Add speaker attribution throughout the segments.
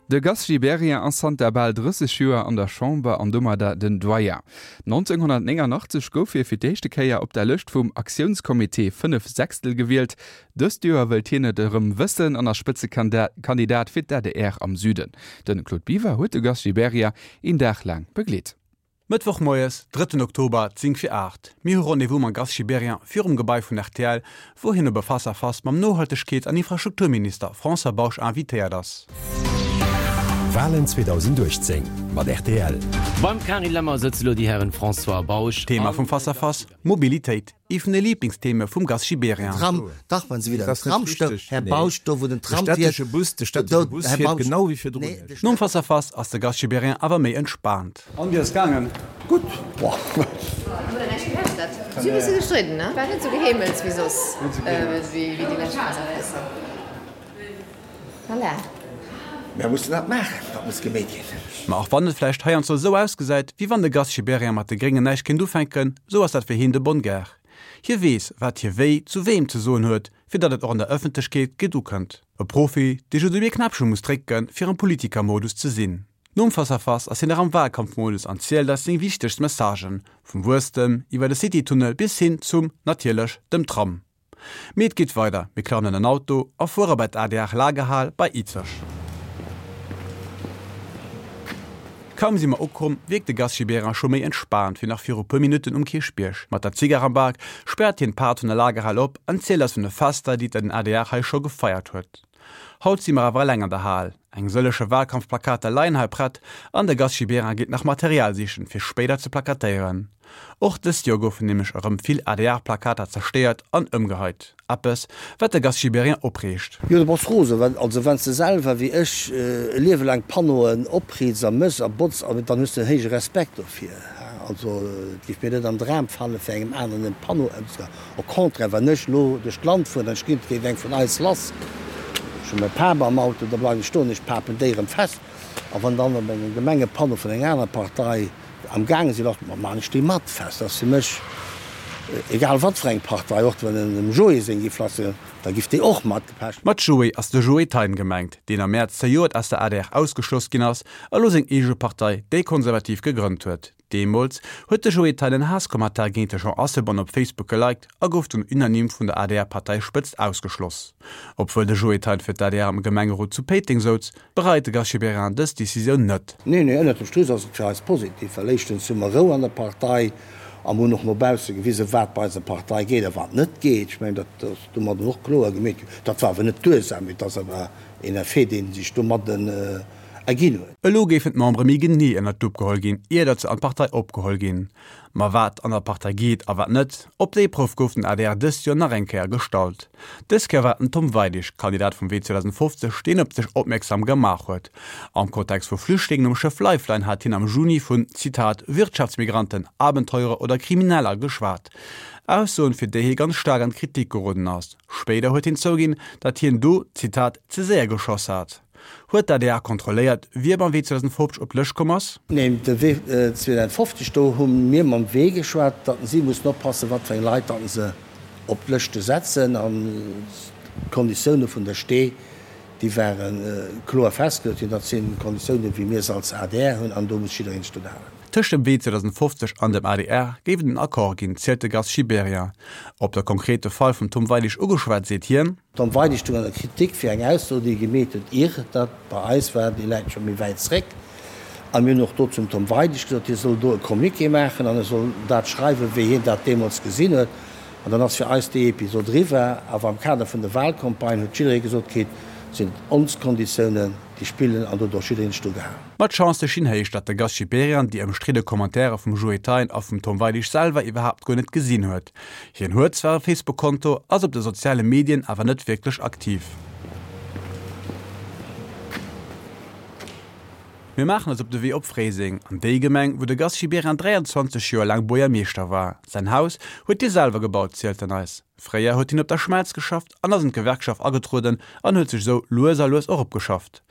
Speaker 1: De Gast Gibéryen ass zanter bal 30 Joer an der Chamber an domadder den Doyen. 1989 gouf hie fir d'éischte Kéier op der Lëscht vum Aktiounscomité 5 Sechstel gewielt. Dëst Joer wëllt hien et erëm wëssen an ass Spëtzekandidat fir d'ADR am Süden. De Claude Biver huet de Gast Gibéryen een Dag laang begleet.
Speaker 2: Mëttwoch moies, drëtten Oktober, 10 vir 8. Mir hu Rendez-vous mam Gast Gibéryen virum Gebai vun rtl, wou hien op e Face à Face mam Nohaltegkeets an Infrastrukturminister François Bausch invitéiert ass.
Speaker 3: Walen 2018 mat rtl.
Speaker 4: Beim Carine Lemmer sëtze lo déi Hären François Bausch
Speaker 2: Thema
Speaker 4: an
Speaker 2: vum Face à Face, Mobilitéit. Ee vun de Liiblingstheme vum Gast Gibéryen.
Speaker 5: Tram, dach, wann se wieder den Tram stëmmt, Här Bausch, do wou den Tram fiert, do, Här Bausch, nee, de
Speaker 2: Nom Face à Face ass de Gast Gibéryen awer méi entspaant.
Speaker 6: An, wéi ass et gaangen? Gutt. Boah.
Speaker 7: Si hu bësse gestridden, ne? War net sou geheemels wéi soss, wéi déi lescht Face-à-Facen. Voilà.
Speaker 5: Mär mussen dat maachen, dat muss gemeet ginn.
Speaker 2: Ma och wann et vläicht heiansdo esou ausgesäit, wéi wann de Gast Gibéryen mat de Gréngen näischt kéint ufänken, esou ass dat fir hien de bonne guerre. Hie weess, wat hie wéi zu weem ze soen huet, fir datt et och an der Ëffentlechkeet gutt ukënnt. E Profi, dee just op ee Knäppche muss drécken, fir am Politikermodus ze sinn. Nom Face-à-Face ass hien nach am Wahlkampfmodus an zielt eis seng wichtegst Messagen, vum Wuesstem iwwer de City-Tunnel bis hin zum, natierlech, dem Tram. Mee et geet weider, mir klammen an en Auto a fuere bei d'ADR Lagerhal bei Izeg. Kaum si mer ukomm, wierkt de Gast Gibéryen scho méi entspaant wéi nach viru puer Minutten um Kierchbierg. Mat der Zigar am Bak späert hien d'Paart vun der Lagerhal op an zielt eis vun de Fester, déi den adr hei scho gefeiert huet. Haut si mer awer eleng an der Hal. Eng sëlleche Wahlkampfplakater leien hei prett an de Gast Gibéryen geet nach Material sichen, fir spéider ze plakatéieren. Och dëst Joer goufen nämlech erëm vill ADR-Plakater zerstéiert an ëmgeheit. Eppes, wat de Gast Gibéryen opreegt.
Speaker 5: Jo, du bass rosen. Well, also wann s de selwer wéi ech e Liewe laang Panneauen opriits a mëss a botz, dann hues de en héije Respekt dofir. Also et géif mir net an Dram falen, fir engem aneren en Panneau ëmzehaen. Au contraire, wann ech elo duerch d'Land fueren an ech ginn, et géif eng vun eis lass, ech hu mäi Pap am Auto, da bleiwen ech stoen, ech papen déi erëm fest. A wann dann op engem Gemengepanneau vun enger anerer Partei am gaange sinn, da maan ech déi mat fest. Dat ass fir mech egal wat fir eng Partei, och wann en dem Joé seng giff lass sinn, da giff déi och mat gepecht.
Speaker 2: Mat Joé ass de Joé Thein gemengt, deen am Mäerz zejoert aus der adr ausgeschloss ginn ass a lo seng eege Partei, déi Konservativ, gegrënnt huet. Deemools huet de Joé Thein en Haasskommentar géint de Jean Asselborn op Facebook geliked a gouf dunn unanime vun der ADR-Parteispëtzt ausgeschloss. Obwuel de Joé Thein fir d'ADR am Gemengerot zu Péiteng souz, bereit de Gast Gibéryen dës Decisioun net.
Speaker 5: Nee, nee, ënnert dem Strich ass et fir eis positiv, well éischtens hu mer Rou an der Partei a mer hunn och no bausse gewisen, wat bei eiser Partei geet a wat net geet. Ech mengen, dat ass domadden och kloer gemeet ginn. Dat war awer net d'Ursaach, mee et ass awer een Effet, dee sech domadden erginn huet.
Speaker 2: Elo géifen d'Membere méi genee ënnert d'Lupp geholl ginn, ier datt se an d'Partei opgeholl ginn. Ma wat an der Partei geet a wat net, op déi Prouf gouf den adr dëst Joer nach eng Kéier gestallt. Dës Kéier war et den Tom Weidig, Kandidat vum Wee 2050, deen op sech opmierksam gemaach huet. Am Kontext vu Flüchtlingen um Schëff Lifeline hat hien am Juni vun, Zitat, Wirtschaftsmigranten, Abenteurer oder Krimineller geschwat. Aussoen, fir déi hie ganz staark an d'Kritik geroden ass. Spéider huet hien zouginn, datt hien do, Zitat, ze séier geschoss hat. Huet d'ADR kontrolléiert, wie beim Wee 2050 op d'Lëscht komm ass?
Speaker 5: Neen, de Wee 2050, do hu mir mam Wee geschwat, datt si mussen oppassen, wat fir eng Leit datt se op d'Lëschte setzen. An d'Konditioune vun der Stee, déi ware kloer festgeluecht ginn. Dat sinn Konditiounen, wéi mir se als adr hunn, an do muss jiddereen sech drun halen.
Speaker 2: Tëscht dem Wee 2050 an dem adr géif et en Accord ginn, zielt de Gast Gibéryen. Op de konkrete Fall vum Tom Weidig ugeschwat, seet hien.
Speaker 5: Tom Weidig stoung an der Kritik fir eng Ausso, déi e gemeet huet, ier dat bei eis war, déi läit scho méi wäit zréck. A mir hunn och do zum Tom Weidig gesot, hie soll do e Communiqué maachen an e soll dat schreiwen, wéi hien dat deemools gesinn huet. An dann ass fir eis déi Episod eriwwer. Awer am Kader vun der Wahlcampagne huet jidderee gesot kritt, et sinn ons Konditiounen, déi spillen an do huet och jiddereen sech dru gehalen.
Speaker 2: Ma d'Chancë stinn héich, datt de Gast Gibéryen déi ëmstridde Commentairë vum Joe Thein a vum Tom Weidig selwer iwwerhaapt guer net gesinn huet. Hien huet zwar e Facebook-Konto, ass op de soziale Medien awer net wierklech aktiv. Mir maachen eis op de Wee op Fréiseng, an déi Gemeng, wou de Gast Gibéryen 23 Joer laang Buergermeeschter war. Säin Haus huet hie selwer gebaut, zielt en eis. Fréier huet hien op der Schmelz geschafft an ass an d'Gewerkschaft agetrueden an huet sech esou lues a lues eropgeschafft.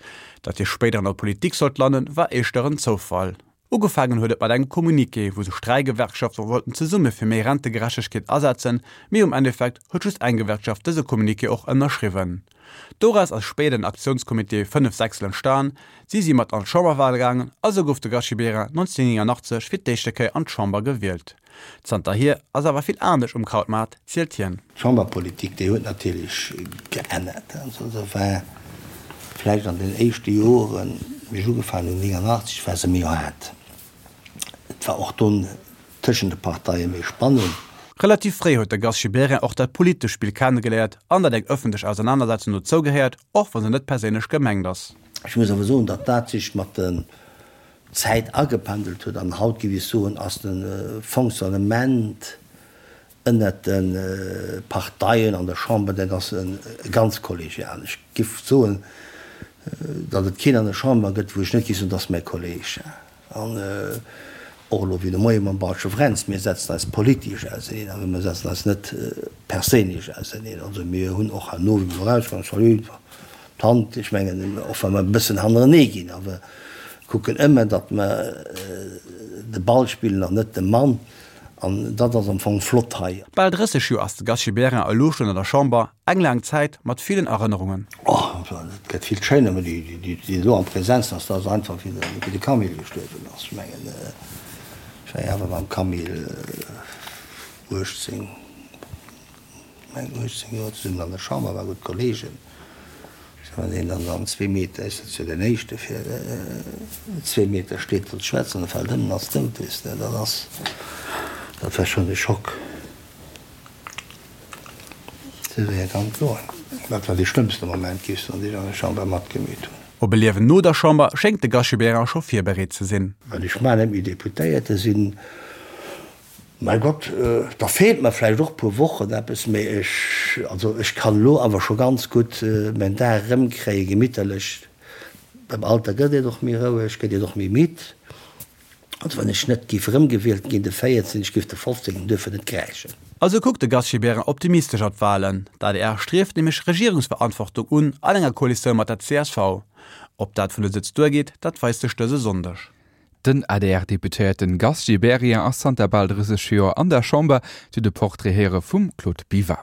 Speaker 2: Datt hie spéider an der Politik sollt landen, war éischter en Zoufall. Ugefaangen huet et mat engem Communiqué, wou sech 3 Gewerkschafte wollten zesumme fir méi Rentegerechtegkeet asetzen, mee um Endeffekt huet just eng Gewerkschaft dëse Communiqué och ënnerschriwwen. Doraus ass spéider den Aktiounscomité 5 Sechstel entstan. Si si mat an d'Chamberwale gaangen a sou gouf de Gast Gibéryen 1989 fir d'éischte Kéier an d'Chamber gewielt. Zanterhier ass awer vill anescht um Krautmaart, zielt hien.
Speaker 5: D'Chamberpolitik, déi huet natierlech geännert. Also se war vläicht an den éischte Joren, wéi ech ugefaangen hunn, 89, war se méi haart. Et war och do tëschent de Parteie méi Spannung.
Speaker 2: Relativ fréi huet de Gast Gibéryen och dat politescht Spill kennegeléiert an datt eng ëffentlech Ausernanersetzung dozou gehéiert, och wa se net perséinlech gemengt ass.
Speaker 5: Ech muss awer soen, datt dat sech mat der Zäit agependelt huet an haut, géif ech soen, ass de Fonctionnement ënnert de Parteien an der Chamber, dat ass e ganz kollegialen. Ech géif soen, datt et keen an der Chamber gëtt, wou ech net géif soen, dat ass mäi Kolleg. An och elo wéi de Moie mam Balsche Fränz, mir setzen eis politesch auseneen, awer mir setzen eis net perséinlech auseneen. Also mir hunn och herno, wéi mer erauskommen, Salut, d'Hand, ech mengen, och wa mer e bëssen hannerenee ginn, awer kucken ëmmer, datt mer de Ball spillen an net de Mann. An dat ass am Fong flott hei.
Speaker 2: Bal 30 Joer ass de Gast Gibéryen elo schonn an der Chamber, eng laang Zäit mat villen Erënnerungen.
Speaker 5: Oh, et gëtt vill schéiner, mä déi elo am Präsenzen ass, dat ass einfach wéi de Camille gestuerwen ass. Ech mengen, ech war jo awer mam Camille 18, Meng 18 Joer zesummen an der Chamber, war gutt Kollegen. Wann een dann an zwee Meter, ech sëtz jo den éischte fir zwee Meter steet wëllt schwätzen, da fält ëm an ass dout, weess de. Dat ass, dat war schonn e Schock. Esou wéi et kann goen. Dat war dee schlëmmste Moment, géif ech soen, deen ech an der Chamber matgemeet hunn.
Speaker 2: Op e Liewen no der Chamber schéngt de Gast Gibéryen scho virbereet ze sinn.
Speaker 5: Well ech mar net méi Deputéierte sinn, Mäi Gott, da feelt mer vläicht och puer Wochen eppes, mee ech, also ech kann elo awer scho ganz gutt mäin Dag erëmkréien, gemitterlech. Beim Alter gëtt een och méi roueg, gëtt een och méi midd. Also wann ech net géif erëmgewielt ginn de 14, ech géif de 15 duerfir net kräischen.
Speaker 2: Also kuckt de Gast Gibéryen optimistesch op d'Walen. D'adr strieft nämlech Regierungsverantwortung un an enger Koalitioun mat der csv. Ob dat vun de Sëtz duergeet, dat weist sech dëse Sonndeg.
Speaker 1: Den ADR-Deputéierten Gast Gibéryen ass zanter bal 30 Joer an der Chamber. Dir hutt e Portrait héiere vum Claude Biver.